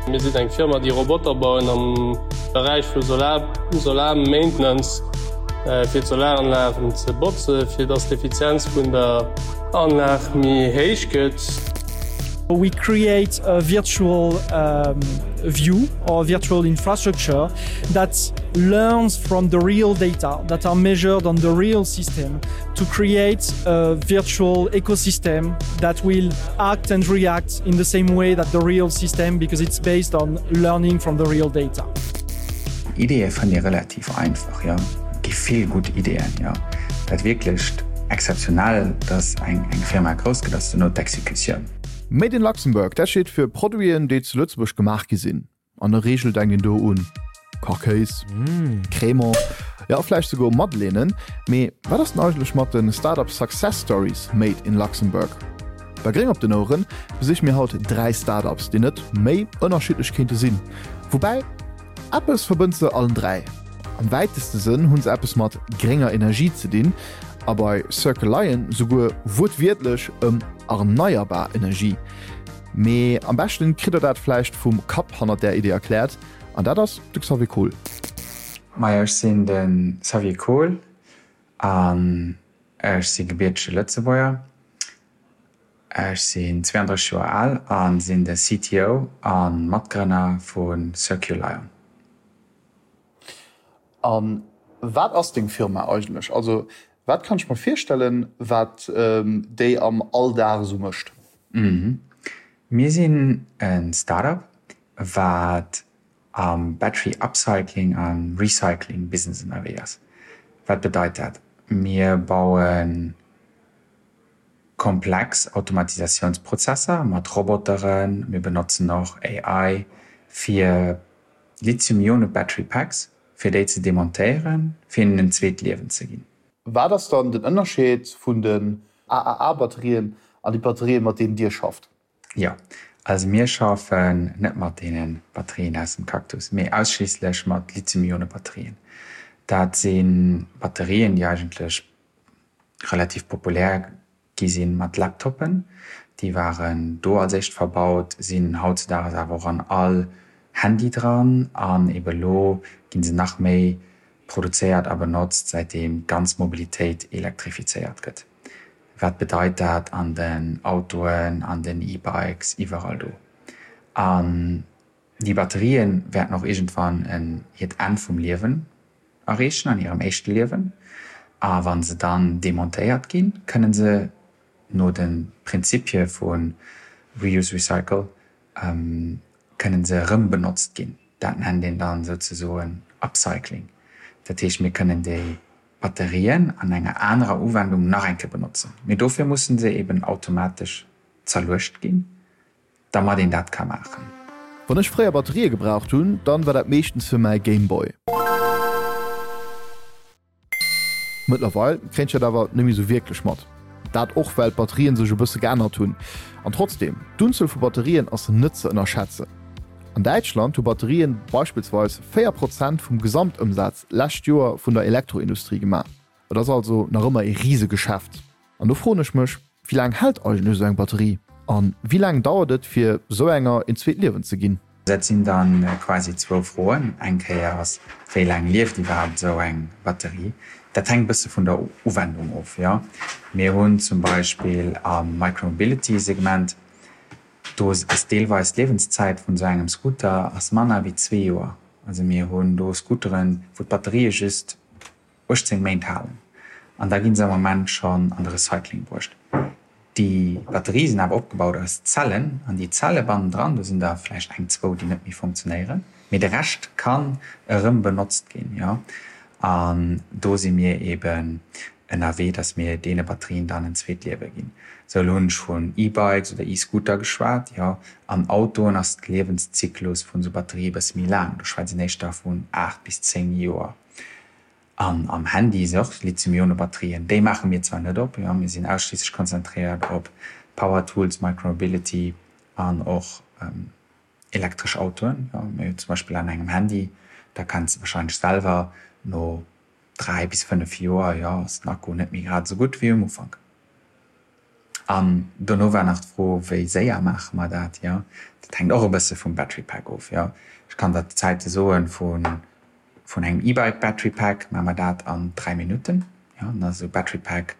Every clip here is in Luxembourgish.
Mir sinn eng Firma, déi Roboter bauen am Beräich vu Solar, Solar Maintenance, fir d'Solaranlagen ze botzen, fir dass d'Effizienz vun der Anlag méi héich gëtt. We create a virtual view or virtual infrastructure that learns from the real data that are measured on the real system to create a virtual ecosystem that will act and react in the same way that the real system because it's based on learning from the real data. Ideeë fënnt ee relativ einfach, jo. Et gi vill gutt Ideeën, jo. Dat wierklecht exzeptionell, dass eng Firma grouss gëtt, ass duerno d'Exekutioun. Made in Luxembourg, dat steet fir Produiten, déi zu Lëtzebuerg gemaach gi sinn. An der Reegel denkt een do un Kachkéis, Crémant, jo vläicht souguer Madeleinen. Mee wat ass denn eigentlech mat de Startup Success Stories made in Luxembourg? Bei Gréng op den Oueren besiche mir haut 3 Startups, déi net méi ënnerschiddlech kéinte sinn. Woubäi, eppes verbënnt se allen 3, Am wäiteste Sënn hu se eppes mat grénger Energie ze dinn a bei Circle Lion souguer wuertwiertlech ëm erneierbar Energie. Mee am beschten kritt der dat vläicht vum Kapp hannert där Idee erkläert, an dat ass de Xavier Kohl. Majo, ech sinn de Xavier Kohl an ech si gebiertege Lëtzebuerger. Ech sinn 32 Joer al a sinn de CTO a Matgrënner vu Circulion. A wat ass deng Firma eigentlech? Also wat kann ech mer virstellen, wat déi am Alldag esou mécht? Mir sinn e Startup, wat am Battery Upcycling a Recycling Business ënnerwee ass. Wat bedeit dat? Mir baue komplex Automatisatiounsprozesser mat Roboteren, mir benotzen och AI fir Lithium-Ione Battery Packs, fir déi ze demontéieren, fir hinnen en zweet Liewen ze ginn. Wat ass dann den Ënnerscheed vun den AAA-Batterien an déi Batterien, mat deenen Dir schafft? Jo, also mir schaffen net mat deene Batterien aus dem Cactus, mee ausschliisslech mat Lithium-Ione-Batterien. Dat si Batterien, déi eigentlech relativ populär gi si mat Laptoppen, déi waren do als éischt verbaut, sinn hautzedaags awer och an all Handy dran an ebe lo gi se nach méi produzéiert a benotzt, säitdeem d'ganz Mobilitéit elektrifizéiert gëtt. Wat bedeit dat an den Autoen, an den E-Bikes, iwwerall do? An déi Batterië wäerten och iergendwann en hiert Enn vum Liewen erreechen an hirem éischte Liewen, a wa se dann demontéiert ginn, kënne se no de Prinzipie vu Reuse, Recycle kënne se erëm benotzt ginn. Dat nennt een dann souzesoen Upcycling. Dat heescht, mir kënnen déi Batterien an enger anerer Uwendung nach eng Kéier benotzen, mee dofir musse se eben automatesch zerluecht ginn. Dermat een dat ka maachen. Wann ech fréier Batterië gebraucht hunn, dann war dat meeschtens fir mäi Gameboy. Mëttlerweil kréien ech dat awer net méi sou wierklech mat. Dat och well d'Batterien sech e bësse geännert hunn. An trotzdeem, d'Unzuel vu Batterien ass net ze ënnerschätzen. An Däitschland hu Batterien beispillsweis 4 Prozent vum Gesamtëmsaz lescht Joer vun der Elektroindustrie gemaach. Et ass also nach ëmmer ee Risegeschäft. An do froen ech mech, Wéi laang hält eigentlech esou eng Batterie? An wéi laang dauert et fir esou enger een zweet Liewen ze ginn? Dat sinn da quasi zwou Froen. Eng Kéier ass, wéi laang lieft iwwerhaapt esou eng Batterie? Dat hänkt e bësse vun der Uwendung of, jo. Mir hunn zum Beispill am Micromobility-Segment, do ass deelweis d'Liewenszäit vun esou engem Scooter ass manner wéi zwee Joer. Also mir hunn do Scooteren, wou d'Batterië just 18 Méint halen an da gi se am Moment schonn an de Recycling bruecht. Déi Batterie sinn awer opgebaut aus Zellen an déi Zelle bannendran, do sinn der vläicht eng, zwou, déi net méi funktionéieren, mee de Rescht kann erëm benotzt ginn. Jo, an do si mir eeben ënnerwee, datt mir deene Batterien dann en zweet Liewe ginn. Sou, elo hunn ech vun E-Bikes oder E-Scooter geschwat. Jo, an Autoen ass de Liewenszyklus vun esou Batterië e bësse méi laang, do schwätzt een éischter vun 8 bis 10 Joer. An am Handy si och Lithium-Ionen-Batterien. Déi maache mir zwar net op, jo, mir sinn ausschliisslech konzentréiert op Power Tools, Micromobility an och elektresch Autoen. Jo, mee zum Beispill an engem Handy, da kenns de warscheinlech selwer, no 3 bis 5 Joer, jo, ass den Akku net méi grad esou gutt wéi um Ufank. An dono war nach d'Fro, wéi séier maache mer dat? Jo, dat hänkt och e bësse vum Battery Pack of. Jo, ech kann der d'Zäite soen vun vun engem E-Bike Battery Pack maache mer dat an 3 Minutten. Jo, dann ass esou e Battery Pack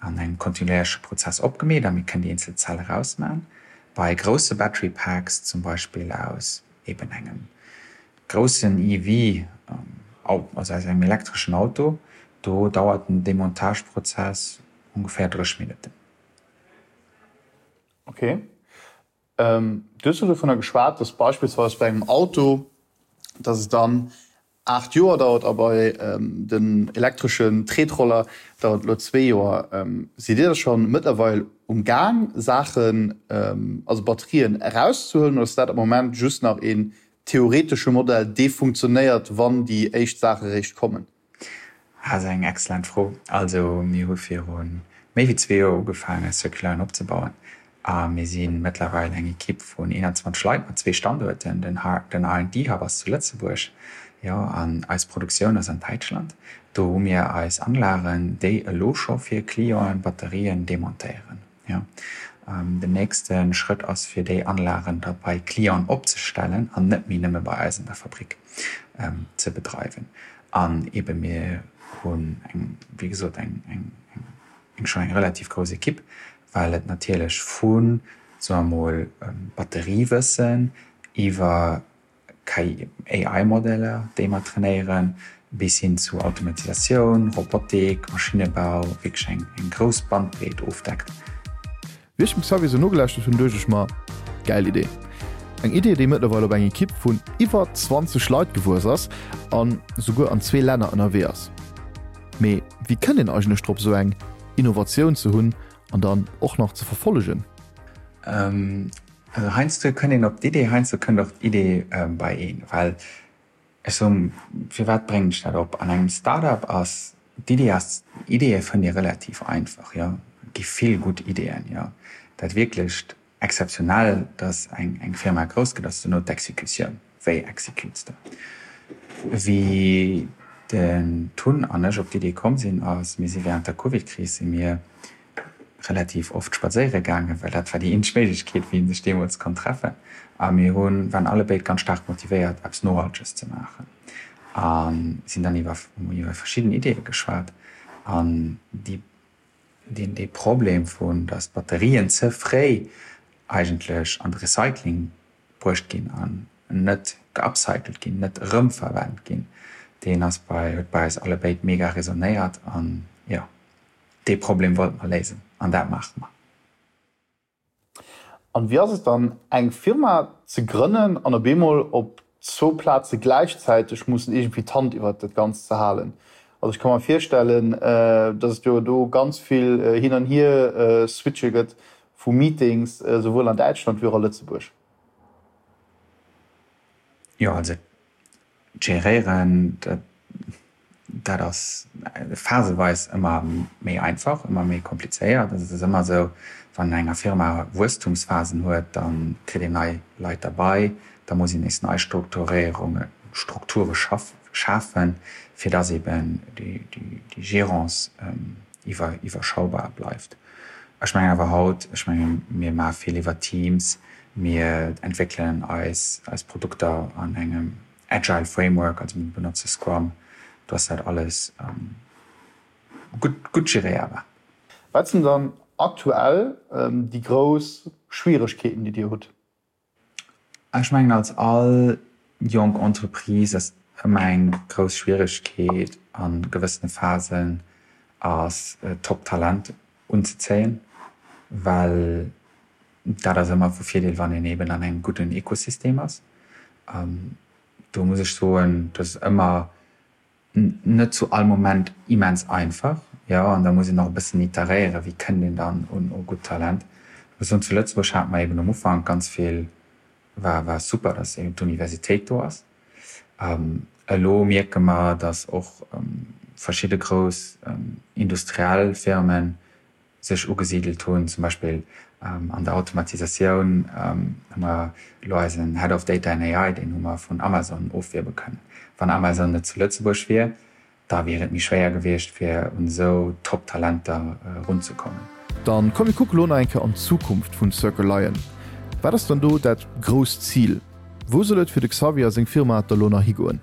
an engem kontinuéierleche Prozess opgemeet a mir kënnen déi eenzel Zell erausmachen. Bei grousse Battery Packs, zum Beispill aus eben engem groussen EV, also aus engem elektreschen Auto, do dauert den Demontageprozess ongeféier 30 Minutten. Ok. Du hues elo dovunner geschwat, dass beispillsweis bei engem Auto, dass et dann 8 Joer dauert a bei den elektreschen Tretroller dauert et elo zwee Joer. Sidd Dir da scho mëttlerweil um Gaang Saachen, also Batterien erauszehuelen oder ass dat am Moment just nach een theoretesche Modell, dee funktionéiert, wann déi éischt Saache réischt kommen? Dat ass eng excellent Fro. Also mir hu viru méi wéi zwee Joer ugefaangen, Circuline opzebauen a mir si mëttlerweil eng Ekipp vun 21 Leit mat zwee Standuerten. Den R&D Hub ass zu Lëtzebuerg, jo, an eis Produktioun ass an Däitschland. Do hu mir eis Anlagen, déi elo scho fir Clienten Batterien demontéieren. Jo, den nächste Schrëtt ass fir déi Anlagen da bei Clienten opzestellen an net méi nëmme bei eis an der Fabrik ze bedreiwen. An eebe mir hunn eng, wéi gesot, eng, eng, eng schonn eng relativ grouss Ekipp, well et natierlech vu, soe mer mol, Batteriewëssen iwwer KI, AI-Modeller, déi mer trainéieren, bis hin zu Automatisatioun, Robotik, Maschinnebau, wierklech eng eng grouss Bandbreet ofdeckt. Wéi ech dem Xavier sou nogelauschtert hunn, duecht ech mer, Gäil Idee! Eng Idee, déi mëttlerweil op eng Ekipp vun iwwer 20 Leit gewuess ass an souguer an zwee Länner ënnerwee ass. Mee wéi kënnt een eigentlech drop, sou eng Innovatioun ze hunn an dann och nach ze verfollegen? Also heiansdo kënnt een op d'Idee, heiansdo kënnt och d'Idee bei een. Well ech soen, firwat bréngen ech dat op? An engem Start-up ass d'Idee ass, Ideeë fënnt ee relativ einfach, jo. Et gi vill gutt Ideeën, jo. Dat wierklecht Exzeptionell, datt eng eng Firma grouss gëtt, ass duerno d'Exekutioun. Wéi exekutes de? Wéi den Tun an ech op d'Idee komm sinn, ass, mir si während der Covid-Kris si mir relativ oft spadséiere gaangen, well dat war déi eenzeg Méiglechkeet, wéi ee sech deemools konnt treffen. A mir hunn, waren allebéid ganz staark motivéiert, eppes Nohalteges ze maachen a sinn dann iwwer, hu iwwer verschidden Ideeë geschwat. An déi, deen, dee Problem vun, datt d'Batterien ze fréi eigentlech an de Recycling bruecht ginn an net geupcycelt ginn, net erëmverwent ginn, deen ass bei, huet bei eis allebéid mega resonéiert an, jo. Dee Problem wollte mer léisen an dat maache mer. An wéi ass et dann, eng Firma ze grënnen an op eemol op zwou Plaze gläichzäiteg mussen iergendwéi d'Hand iwwert dat Ganzt ze halen? Also ech ka mer virstellen, dass et jo do ganz vill hin an hier switche gëtt vu Meetings, souwuel an Däitschland wéi och a Lëtzebuerg. Jo, also Geréieren, dat ass phaseweis ëmmer méi einfach, ëmmer méi komplizéiert. Also et ass ëmmer esou, wann enger Firma Wuesstumsphasen huet, da kritt een nei Leit derbei, da muss een nees nei Strukturéierungen, Strukture schafen, fir datt eben déi Gérance iwwerschaubar bleift. Ech mengen awer haut, ech menge mir maache vill iwwer Teams, mir entwéckelen eis eis Produkter an engem agile Framework, also mir benotze Scrum, do ass dat alles gutt gutt geréierbar. Wat sinn dann aktuell déi grouss Schwieregkeeten, déi Dir hutt? Ech mengen als all jonk Entreprise ass ëmmer eng grouss Schwieregkeet a gewëssene Phasen ass Top-Talent unzezéien, well dat ass ëmmer vu Virdeel wann een eben an engem gudden Ekosystem ass. Do muss ech soen, dat ass ëmmer Net zu all Moment immens einfach, jo, an da muss een och e bëssen iteréieren, wéi kënnt een dann un u gutt Talent. Ech muss soen, zu Lëtzebuerg hate mer eben um Ufank ganz vill, war war super, datt eben d'Universitéit do ass. Elo mierke mer, datt och verschidde grouss industriell Firmen sech ugesidelt hunn, zum Beispill an der Automatisatioun hu mer elo eisen Head of Data and AI, deen hu mer vun Amazon ofwierbe kënnen. Wann Amazon net zu Lëtzebuerg wier, da wier et méi schwéier gewiescht, fir un esou Top-Talenter erunzekommen. Dann komm mir kucke lo nach eng Kéier an d'Zukunft vun Circle Lion. Wat ass dann do dat grousst Zil? Wou soll et fir de Xavier a seng Firma da lo nach higoen?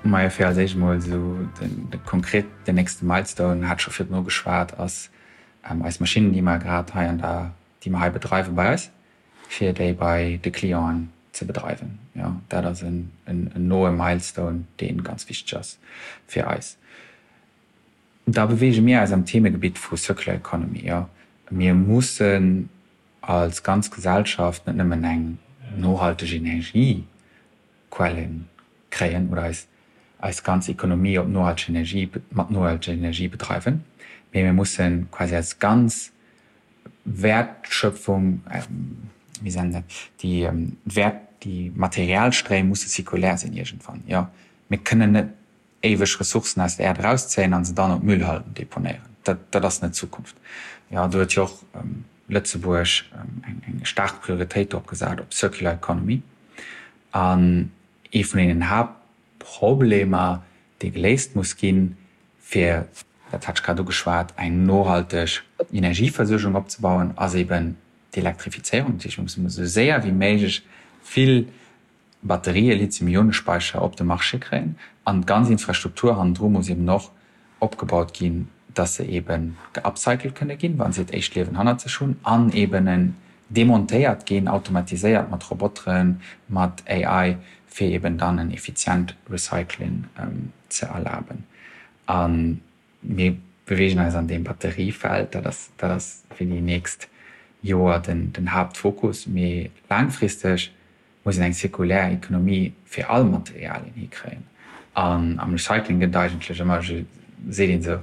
Majo, fir als éischt emol esou de konkret den nächste Milestone, hat scho virdrun ugeschwat, ass eis Maschinnen, déi mer grad hei an der, déi mer hei bedreiwe bei eis, fir déi bei de Clienten ze bedreiwen. Jo, dat ass en noe Milestone, dee ganz wichteg ass fir eis. Da beweege mir eis am Themegebitt vu Circular Economy. Jo, mir mussen als ganz Gesellschaft net nëmmen eng nohalteg Energiequelle kréien oder eis eis ganz Economie op nohalteg Energie, mat nohalteger Energie bedreiwen, mee mir mussen quasi eis ganz Wäertschöpfung, wéi seet een dat, déi Wäert, déi Materialstréim musse zirkulär sinn iergendwann. Jo, mir kënnen net éiweg Ressourcen aus der Äerd erauszéien an se dann op Müllhalden deponéieren. Dat, dat ass net d'Zukunft. Jo, do huet jo och Lëtzebuerg eng, eng staark Prioritéit drop gesat, op Circular Economy. An ee vun deenen Haaptproblemer, dee geléist muss ginn, fir, dat hat ech grad ugeschwat, eng nohalteg Energieversuergung opzebauen, ass eben d'Elektrifizéierung. Dat heescht, mir mussen esou séier wéi méiglech vill Batterië, Lithium-Ionen-Speicher op de Marché kréien an d'ganz Infrastruktur hannendru muss eben och opgebaut ginn, dass se eben geupcycelt kënne ginn, wa se hiert éischt Liewen hannert sech hunn an eben en demontéiert ginn, automatiséiert mat Roboteren, mat AI, fir eben dann en effizient Recycling ze erlaben. A mir beweegen eis an deem Batteriefeld, dat ass, dat ass fir déi nächst Joer den, den Haaptfokus. Mee laangfristeg muss een eng zirkulär Economie fir all Materialien hikréien. An am Recycling gëtt et eigentlech ëmmer, seet een esou,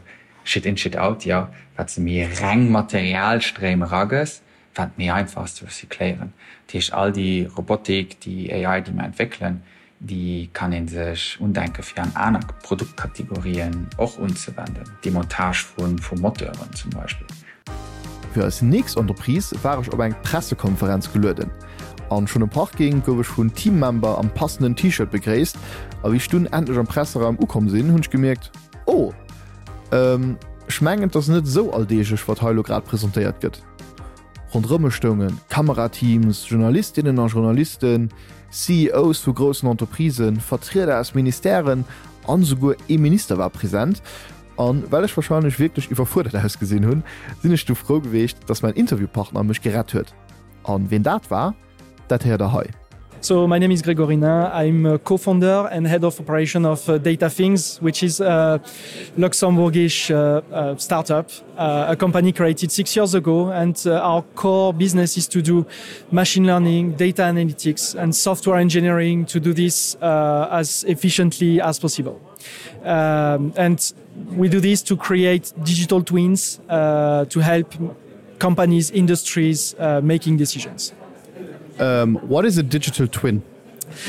Shit in, shit out, jo, wat s de méi reng Materialstréim eragëss, wat méi einfach ass ze recycléieren. Dat heescht, all déi Robotik, déi AI, déi mer entwéckelen, déi kann ee sech undenke fir an aner Produktkategorien och unzewenden, Demontage vu Moteuren zum Beispill. Fir eis nächst Entreprise war ech op eng Pressekonferenz gelueden. An schonn um Parking gouf ech vun Teammember am passenden T-Shirt begréisst. A wéi ech dunn endlech am Presseraum ukomm sinn, hunn ech gemierkt, Oh, ech mengen et ass net esou alldeeglech wat hei elo grad presentéiert gëtt. Ronderëm mech stounge Kamerateams, Journalistinnen a Journalisten, CEOs vu groussen Entreprisen, Vertrieder aus Ministèren an esouguer ee Minister war present. An well ech warscheinlech wierklech iwwerfuerdert ausgesinn hunn, sinn ech du frou geweecht, dass mäin Interviewpartner mech gerett huet. An ween dat war, dat héiert der hei. So my name is Grégory Nain, I'm a co-founder and head of operation of uh, DataThings, which is a Luxembourgish uh, uh, startup, uh, a company created six years ago. And uh, our core business is to do machine learning, data analytics and software engineering to do this uh, as efficiently as possible. Um, and we do this to create digital twins uh, to help companies, industries uh, making decisions. Um, what is a digital twin?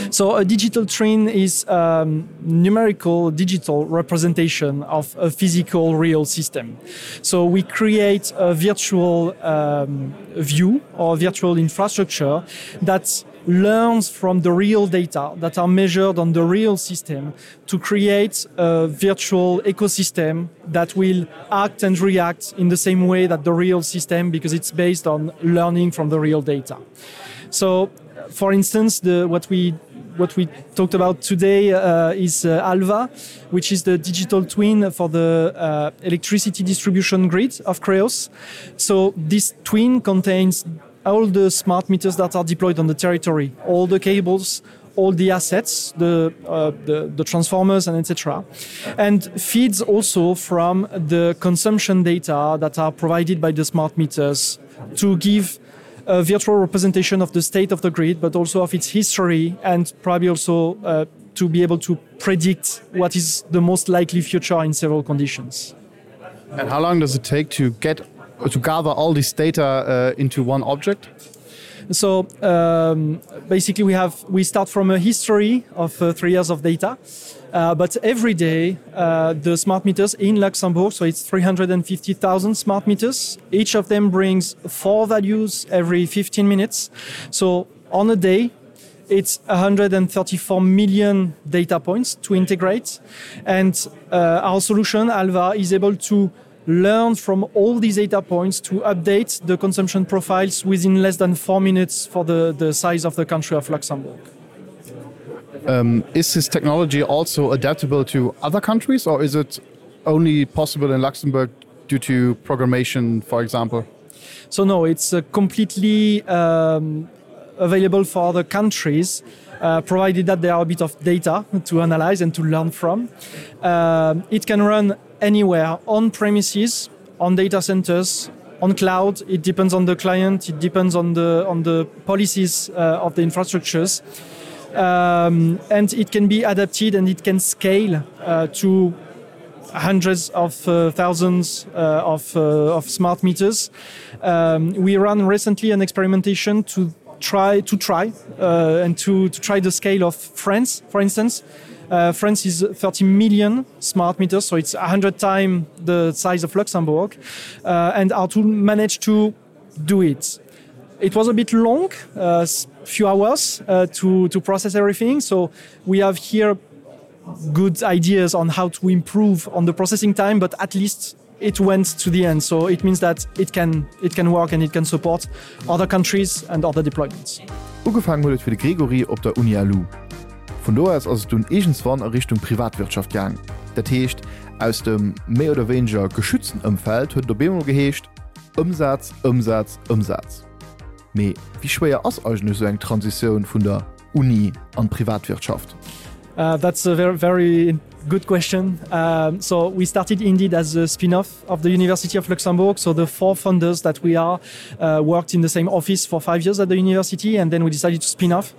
So a digital twin is a um, numerical digital representation of a physical real system. So we create a virtual um, view or virtual infrastructure that learns from the real data that are measured on the real system to create a virtual ecosystem that will act and react in the same way that the real system because it's based on learning from the real data. So for instance, the, what we what we talked about today uh, is uh, Alva, which is the digital twin for the uh, electricity distribution grid of Creos. So this twin contains all the smart meters that are deployed on the territory, all the cables, all the assets, the, uh, the, the transformers and etc. And feeds also from the consumption data that are provided by the smart meters to give a virtual representation of the state of the grid, but also of its history and probably also uh, to be able to predict what is the most likely future in several conditions. And how long does it take to get to gather all this data uh, into one object? So um, basically we have we start from a history of uh, three years of data. Uh, but every day uh, the smart meters in Luxembourg, so it's 350,000 smart meters. Each of them brings four values every 15 minutes. So on a day, it's 134 million data points to integrate. And uh, our solution, Alva, is able to. learn from all these data points to update the consumption profiles within less than four minutes for the, the size of the country of Luxembourg. Um, is this technology also adaptable to other countries or is it only possible in Luxembourg due to programmation, for example? So no, it's uh, completely um, available for other countries, uh, provided that there are a bit of data to analyze and to learn from. Uh, it can run anywhere on premises, on data centers, on cloud. It depends on the client, it depends on the, on the policies uh, of the infrastructures. Um, and it can be adapted and it can scale uh, to hundreds of uh, thousands uh, of, uh, of smart meters. Um, we ran recently an experimentation to try to try uh, and to, to try the scale of France, for instance. Uh, France is 30 million smart meters, so it's 100 times the size of Luxembourg uh, and our tool managed to do it. It was a bit long, a uh, few hours uh, to, to process everything. So we have here good ideas on how to improve on the processing time, but at least it went to the end. So it means that it can, it can work and it can support other countries and other deployments. Ugefaangen huet et fir de Grégory op der Uni LU. Vun do aus ass et dunn iergendswann a Richtung Privatwirtschaft gaang. Dat heescht, aus dem méi oder wéineger geschützten Ëmfeld huet et op eemol geheescht, Ëmsaz, Ëmsaz, Ëmsaz. Mee wéi schwéier ass eigentlech esou eng Transitioun vun der Uni an d'Privatwirtschaft? Uh, that's a very, very good question. Um, so we started indeed as a spin-off of the University of Luxembourg. So the four founders that we are uh, worked in the same office for five years at the university and then we decided to spin off.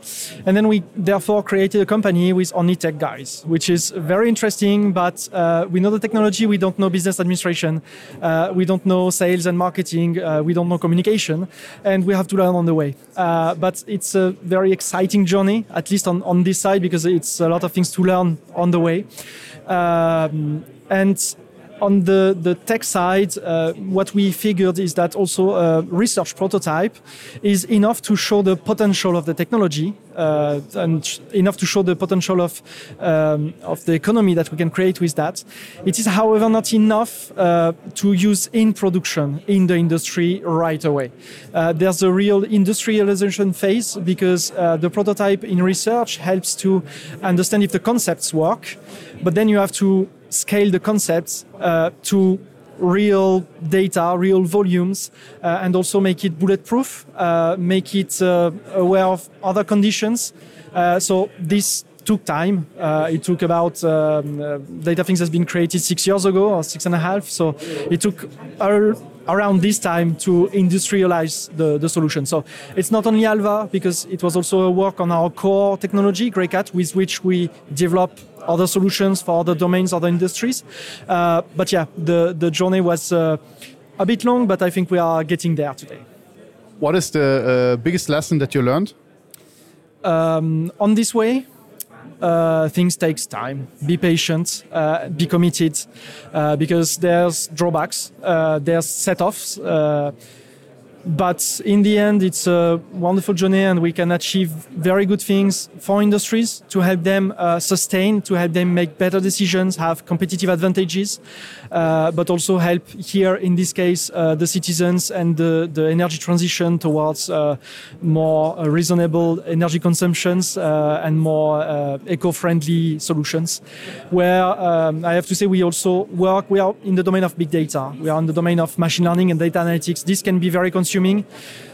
And then we therefore created a company with only tech guys, which is very interesting, but uh, we know the technology, we don't know business administration, uh, we don't know sales and marketing, uh, we don't know communication, and we have to learn on the way. Uh, but it's a very exciting journey, at least on, on this side, because it's a lot of things to learn on the way. Um, and on the, the tech side, uh, what we figured is that also a research prototype is enough to show the potential of the technology uh, and enough to show the potential of, um, of the economy that we can create with that. It is, however, not enough uh, to use in production in the industry right away. Uh, there's a real industrialization phase because uh, the prototype in research helps to understand if the concepts work, but then you have to scale the concepts uh, to real data, real volumes, uh, and also make it bulletproof, uh, make it uh, aware of other conditions. Uh, so this took time. Uh, it took about um, uh, data things has been created six years ago or six and a half. So it took around this time to industrialize the, the solution. So it's not only Alva because it was also a work on our core technology, Greycat, with which we develop other solutions for other domains, other industries. Uh, but yeah, the, the journey was uh, a bit long, but I think we are getting there today. What is the uh, biggest lesson that you learned? Um, on this way, uh, things takes time. Be patient, uh, be committed, uh, because there's drawbacks, uh, there's set-offs. Uh, but in the end it's a wonderful journey and we can achieve very good things for industries to help them uh, sustain to help them make better decisions have competitive advantages uh, but also help here in this case uh, the citizens and the, the energy transition towards uh, more uh, reasonable energy consumptions uh, and more uh, eco-friendly solutions where um, I have to say we also work we are in the domain of big data we are in the domain of machine learning and data analytics this can be very consuming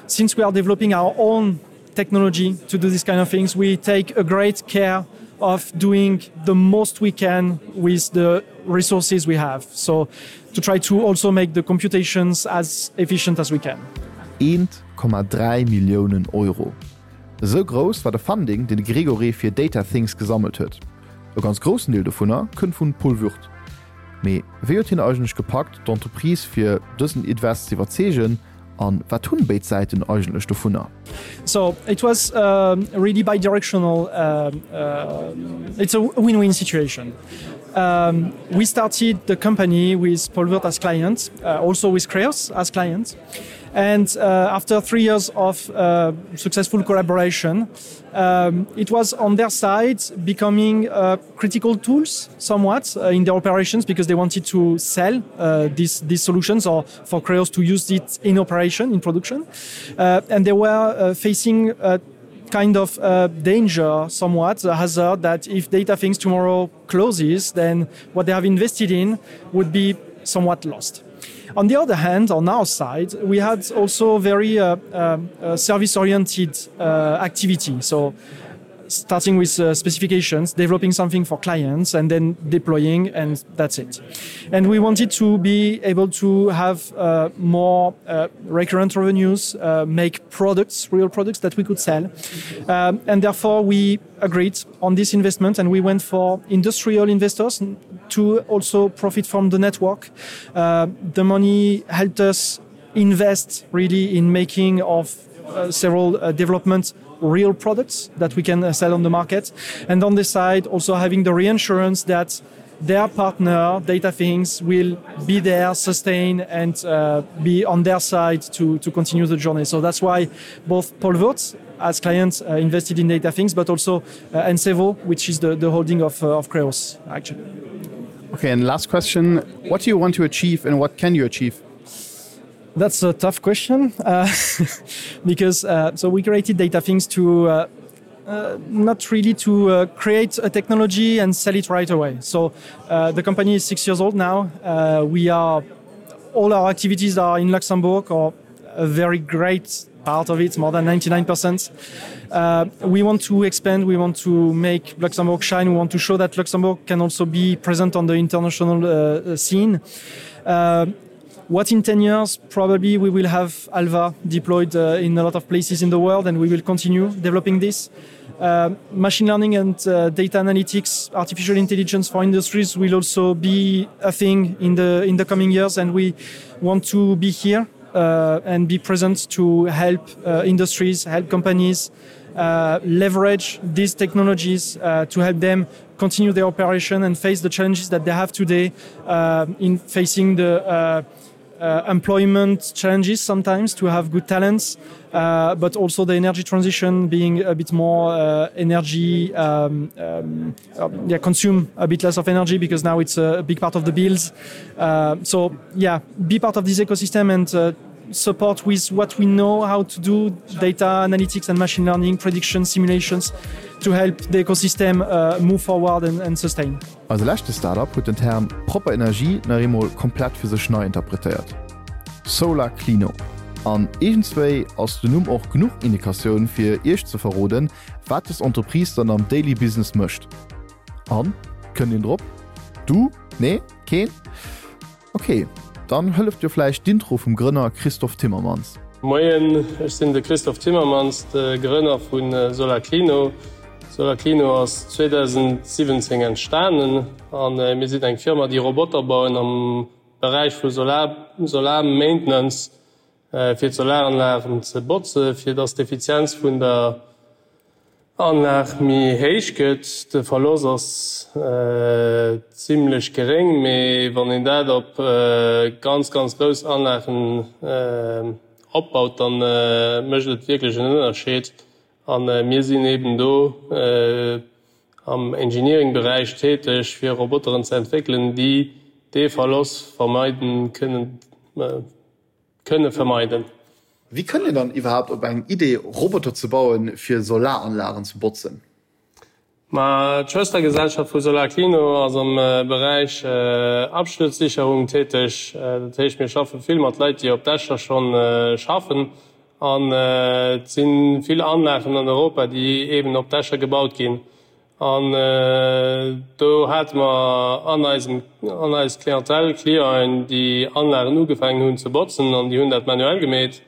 since we are developing our own technology to do these kind of things we take a great care of doing the most we can with the resources we have so to try to also make the computations as efficient as we can. 1,3 Milliounen Euro. Esou grouss war de Funding, deen de Grégory fir Data Things gesammelt huet. E ganz groussen Deel dovunner kënnt vun Paul Würth. Mee wéi huet hien eigentlech gepackt, d'Entreprise fir dësen Invest ze iwwerzeegen an wat hunn béid Säiten eigentlech dovunner? So it was um, really bidirectional. Um, uh, it's a win-win situation. Um, we started the company with Paul Würth as clients, uh, also with Creos as clients. And uh, after three years of uh, successful collaboration, um, it was on their side becoming uh, critical tools somewhat uh, in their operations because they wanted to sell uh, these, these solutions or for Creos to use it in operation, in production. Uh, and they were uh, facing a kind of uh, danger somewhat, a hazard that if data things tomorrow closes, then what they have invested in would be somewhat lost. On the other hand, on our side, we had also very uh, uh, uh service-oriented uh, activity. So starting with uh, specifications, developing something for clients and then deploying and that's it. And we wanted to be able to have uh, more uh, recurrent revenues, uh, make products, real products that we could sell. Um, and therefore we agreed on this investment and we went for industrial investors to also profit from the network. Uh, the money helped us invest really in making of uh, several uh, developments real products that we can uh, sell on the market and on this side also having the reinsurance that their partner data things will be there sustain and uh, be on their side to to continue the journey so that's why both Paul Wurtz as clients uh, invested in data things but also uh, Ensevo which is the the holding of uh, of Creos actually okay and last question what do you want to achieve and what can you achieve That's a tough question uh, because uh, so we created data things to uh, uh, not really to uh, create a technology and sell it right away. So uh, the company is six years old now. Uh, we are all our activities are in Luxembourg or a very great part of it, more than 99%. Uh, we want to expand, we want to make Luxembourg shine, we want to show that Luxembourg can also be present on the international uh, uh scene. Uh, what in 10 years probably we will have Alva deployed uh, in a lot of places in the world and we will continue developing this. Uh, machine learning and uh, data analytics, artificial intelligence for industries will also be a thing in the in the coming years and we want to be here uh, and be present to help uh, industries, help companies uh, leverage these technologies uh, to help them continue their operation and face the challenges that they have today uh, in facing the uh, uh, employment challenges sometimes to have good talents, uh, but also the energy transition being a bit more uh, energy um, um, uh, yeah, consume a bit less of energy because now it's a big part of the bills. Uh, so yeah, be part of this ecosystem and uh, support with what we know how to do data analytics and machine learning prediction simulations to help the ecosystem uh, move forward and, and sustain. Eise leschte Startup huet den Term propper Energie nach eemol komplett fir sech nei interpretéiert, SolarClino. An iergendswéi ass den Numm och genuch Indikatioun fir iech ze verroden, wat des Entreprise dann am Daily Business mécht. An? Kënnt een drop? Du? Nee? Keen? Ok, dann hëlleft jo vläicht d'Intro vum Grënner Christophe Timmermans. Moien, ech sinn de Christophe Timmermans, de Grënner vu Solarclino. Solarclino ass 2017 entstanen a mir sinn eng Firma, déi Roboter bauen am Beräich vu Solar, Solar Maintenance, fir d'Solaranlagen ze botze fir datt d'Effizienz vun der Anlag méi héich gëtt. De Verlost ass zimlech geréng, mee wann een dat op ganz, ganz grouss Anlagen opbaut, da mécht et wierklech en Ënnerscheed. A mir sinn eben do am Engineering-Beräich täteg, fir Roboteren ze entwéckelen, déi dee Verlost vermeiden kënnen. Kënne vermeiden. Wéi kënnt een dann iwwerhaapt op eng Idee Roboter ze bauen fir Solaranlagen ze botzen? Ma d'Schwëstergesellschaft vu Solarclino ass am Beräich Absturzsicherung täteg. Dat heescht mir schaffe vill mat Leit déi op Dächer schonn schaffen an et si vill Anlagen an Europa déi eben op Dächer gebaut ginn. An do hate mer an eisem, an eis Clientèle Clienten, déi Anlagen ugefaangen hunn ze botzen an déi hunn dat manuell gemeet.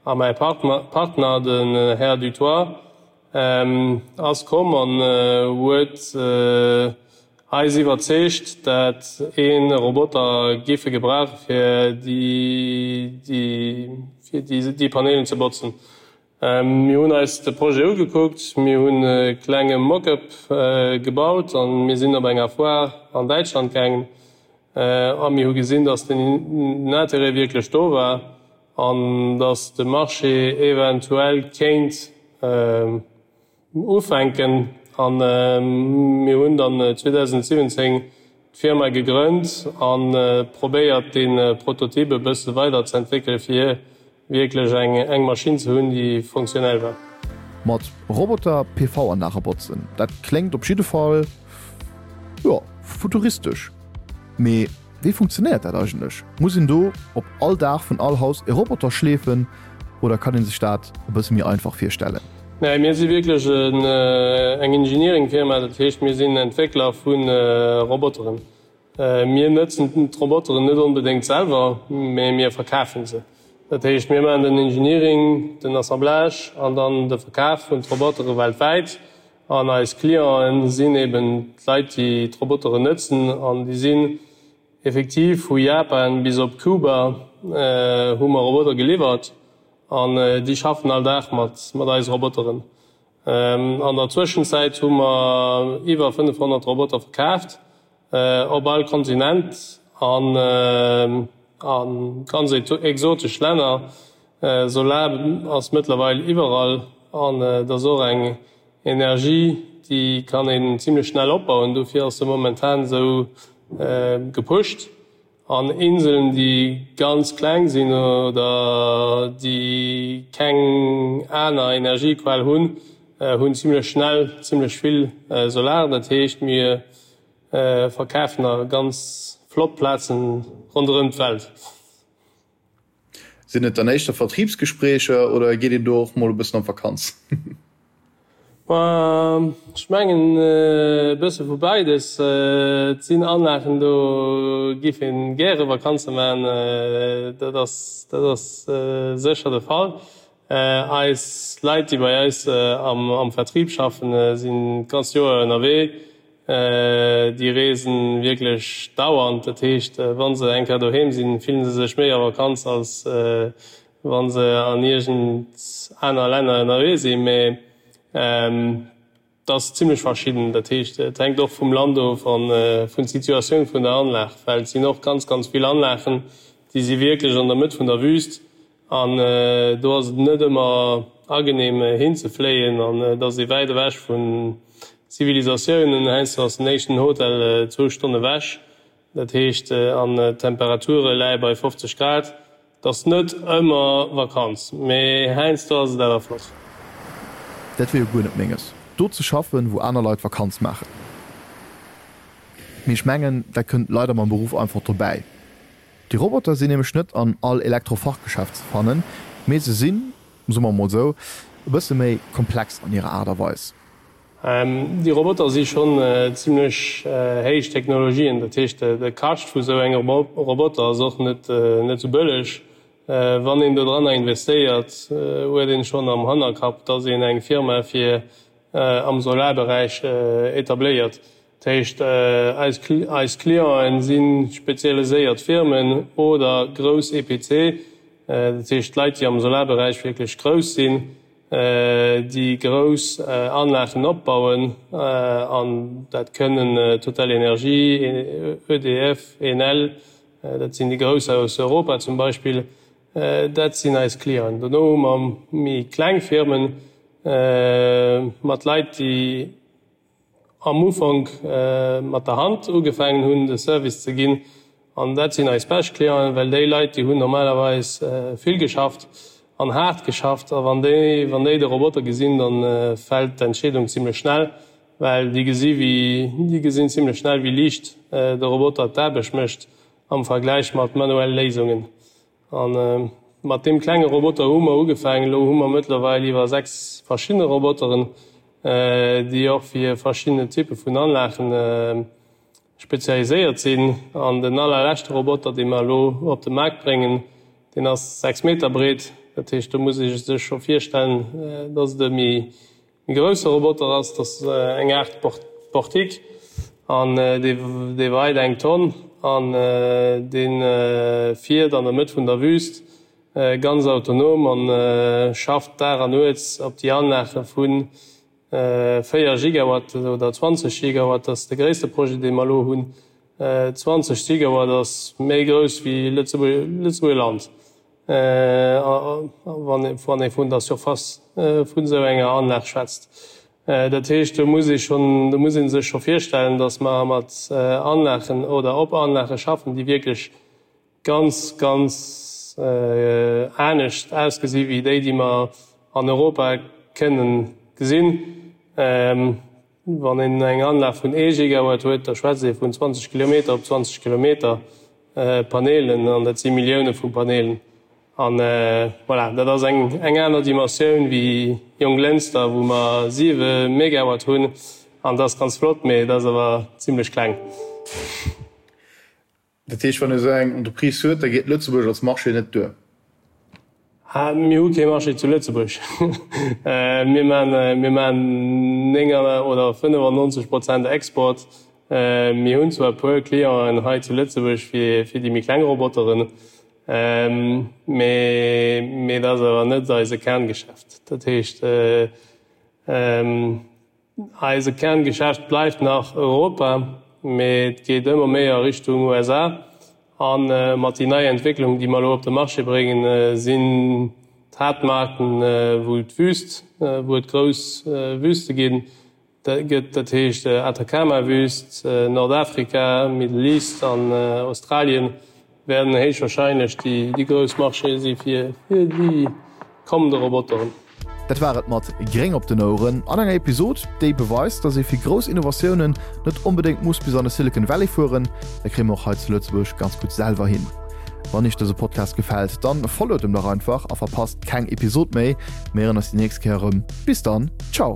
A mäi Partner, den Här Dutoit, ass komm an huet eis iwwerzeegt, dat ee Roboter giffe gebrauche fir déi, fir déi Panelen ze botzen. Mir hunn eis de Projet ugekuckt, mir hunn e klenge Mock-up gebaut a mir sinn op enger Foire an Däitschland gaangen a mir hu gesinn, datt den Intérêt wierklech do war. an datt de Marché eventuell kéint ufänken. A mir hunn dann 2017 d'Firma gegrënnt a probéiert dee Prototyp e bësse weider ze entwéckele fir wierklech eng Maschinn ze hunn, déi funktionell war. Mat Roboter PV-Anlage botzen, dat kléngt op jidde Fall, jo, futuristesch. Mee wéi funktionéiert dat eigentlech? Muss een do op all Daach vun all Haus e Roboter schleefen oder kann ee sech dat e bësse méi einfach virstellen? Nee, mir si wierklech eng Engineering-Firma, dat heescht mir sinn Entwéckler vu Roboteren. Mir nëtzen d'Roboteren net onbedéngt selwer, mee mir verkafen se. Dat heescht, mir maachen den Engineering, den Assemblage an dann de Verkaf vun d'Robotere weltwäit. An eis Clienten sinn eben d'Leit, déi d'Roboteren nëtzen. An déi sinn effektiv vu Japan bis op Kuba hu mer Roboter geliwwert. An déi schaffen all Dag mat eise Roboteren. An der Zwëschenzäit hu mer iwwer 500 Roboter verkaaft op all Kontinent an a ganz exotesch Länner. Solar ass mëttlerweil iwwerall an et ass och eng Energie, déi kann een zimlech schnell opbauen. Dofir ass se momentan esou gepusht. An Inseln, déi ganz kleng sinn oder déi keng aner Energiequell hunn, hunn zimlech schnell zimlech vill Solar. Dat heescht, mir verkafen a ganz flott Plazen ronderëm d'Welt. Sinn et dann éischter Vertriebsgespréicher oder geet een do och mol e bëssen an d'Vakanz? Ech mengen e bësse vu beides. Et sinn Anlagen, do giff een gäre Vakanze maachen, dat ass dat ass sécher de Fall. Eis Leit, déi bei eis am Vertrieb schaffen, sinn d'ganzt Joer ënnerwee. Déi reesen wierklech dauernd. Dat heescht, wa se eng Kéier doheem sinn, fillen se sech méi a Vakanz, als wa se an iergend aner Länner ënnerwee sinn. Mee et ass zimmlech verschidden. Dat heescht, et hänkt och vum Land of a vun Situatioun vun der Anlag, well et sinn och ganz, ganz vill Anlagen, déi si wierklech an der Mëtt vun der Wüst. An do ass et net ëmmer agenehm hinzefléien an et ass ee wäit ewech vun Zivilisatiounen. Heiansdo ass den éischten Hotel zwou Stonn ewech, dat heescht an d'Temperature läie bei 50 Grad. Et ass net ëmmer Vakanz, mee heiansdo ass et awer flott. Dat wier jo guer net menges, do ze schaffen, wou aner Leit Vakanz maachen. Mee ech mengen, dat kënnt leider mam Beruff einfach dobäi. Déi Roboter sinn nämlech net an all Elektrofachgeschäft ze fannen, mee se sinn, soe mer emol esou, e bësse méi komplex an hirer Aart a Weis. Déi Roboter si schonn zimlech héich Technologien, dat heescht de Kascht vu sou engem Roboter ass och net sou bëlleg. Wann een dodranner investéiert, huet een schonn am Hannerkapp, dass een eng Firma fir am Solarberäich etabléiert. Dat heescht, eis Clienten si spezialiséiert Firmen oder grouss EPC, dat heescht Leit, déi am Solarberäich wierklech grouss sinn, déi grouss Anlagen opbauen. An dat kënnen TotalEnergies, EDF, Enel, dat sinn déi grouss aus Europa zum Beispill, dat sinn eis Clienten. Dono hu mer méi kleng Firmen mat Leit, déi am Ufank mat der Hand ugefaangen hunn de Service ze ginn an dat sinn eis bescht Clienten, well déi Leit déi hunn normalerweis vill geschafft an haart geschafft a wann déi wann déi de Roboter gesinn, dann fält d'Entscheedung zimlech schnell, well déi gesi wéi déi gesinn zimlech schnell wéi liicht de Roboter d'Aarbecht mécht am Vergläich mat manuelle Léisungen. A mat deem klenge Roboter hu mer ugefaangen. Elo hu mer mëttlerweil iwwer 6 verschidde Roboteren, déi och fir verschidden Typpe vun Anlagen spezialiséiert sinn. An den allerleschte Roboter, dee mer elo op de Maart bréngen, deen ass 6 Meter breet. Dat heescht, do muss ee sech scho virstellen, dass et e méi E grousse Roboter ass, dat ass eng Aart Portique an dee weit eng Tonn an dee fiert an der Mëtt vun der Wüst ganz autonom an schafft Dag an Nuets op déi Anlage vu 4 Gigawatt oder 20 Gigawatt. Dat ass de gréisste Projet, dee mer elo hunn. 20 Gigawatt ass méi grouss wéi Lëtzebuerg Land. Wann ee vun der Surface vun esou enger Anlag schwätzt. Dat heescht, do muss ee schonn, do muss ee sech scho virstellen, datt mer mat Anlagen oder op Anlage schaffen, déi wierklech ganz, ganz anescht ausgesi wéi déi, déi mer an Europa kënnen gesinn. Wann een eng Anlag vun ee Gigawatt huet, da schwätzt ee vun 20 Kilometer op 20 Kilometer Panelen, an dat si Millioune vu Panelen. An voilà, dat ass eng eng aner Dimensioun wéi Jonglënster, wou mer siwe Megawatt hunn, an dat ass ganz flott, mee dat ass awer zimlech kleng. Dat heescht, wann ee esou eng Entreprise huet, da geet Lëtzebuerg als Marché net duer? Mir hu kee Marché zu Lëtzebuerg. Mir maachen 9 oder 95 Prozent Export. Mir hunn zwar e puer Clienten hei zu Lëtzebuerg fir déi méi kleng Roboteren, mee dat ass awer net eise Kerngeschäft. Dat heescht, Eise Kerngeschäft bleift nach Europa, mee et geet ëmmer méi a Richtung USA. A mat déi nei Entwécklung, déi mer elo op de Marché bréngen, sinn d'Haaptmarkten, wou d'Wüst, wou et grouss Wüste ginn, gëtt, dat heescht Atacama-Wüst, Nordafrika, Middle East an Australien. Wäerten héichwahrscheinlech déi grouss Marchéë si fir déi kommende Roboteren. Dat war et mat Gréng op den Oueren an enger Episod, déi beweist, dass ee fir grouss Innovatiounen net onbedéngt muss bis an de Silicon Valley fueren. Dat kréie mer och hei zu Lëtzebuerg ganz gutt selwer hin. Wann iech dëse Podcast gefält, dann followt em dach einfach a verpasst keng Episod méi. Mir héieren eis déi nächst Kéier erëm. Bis dann, ciao!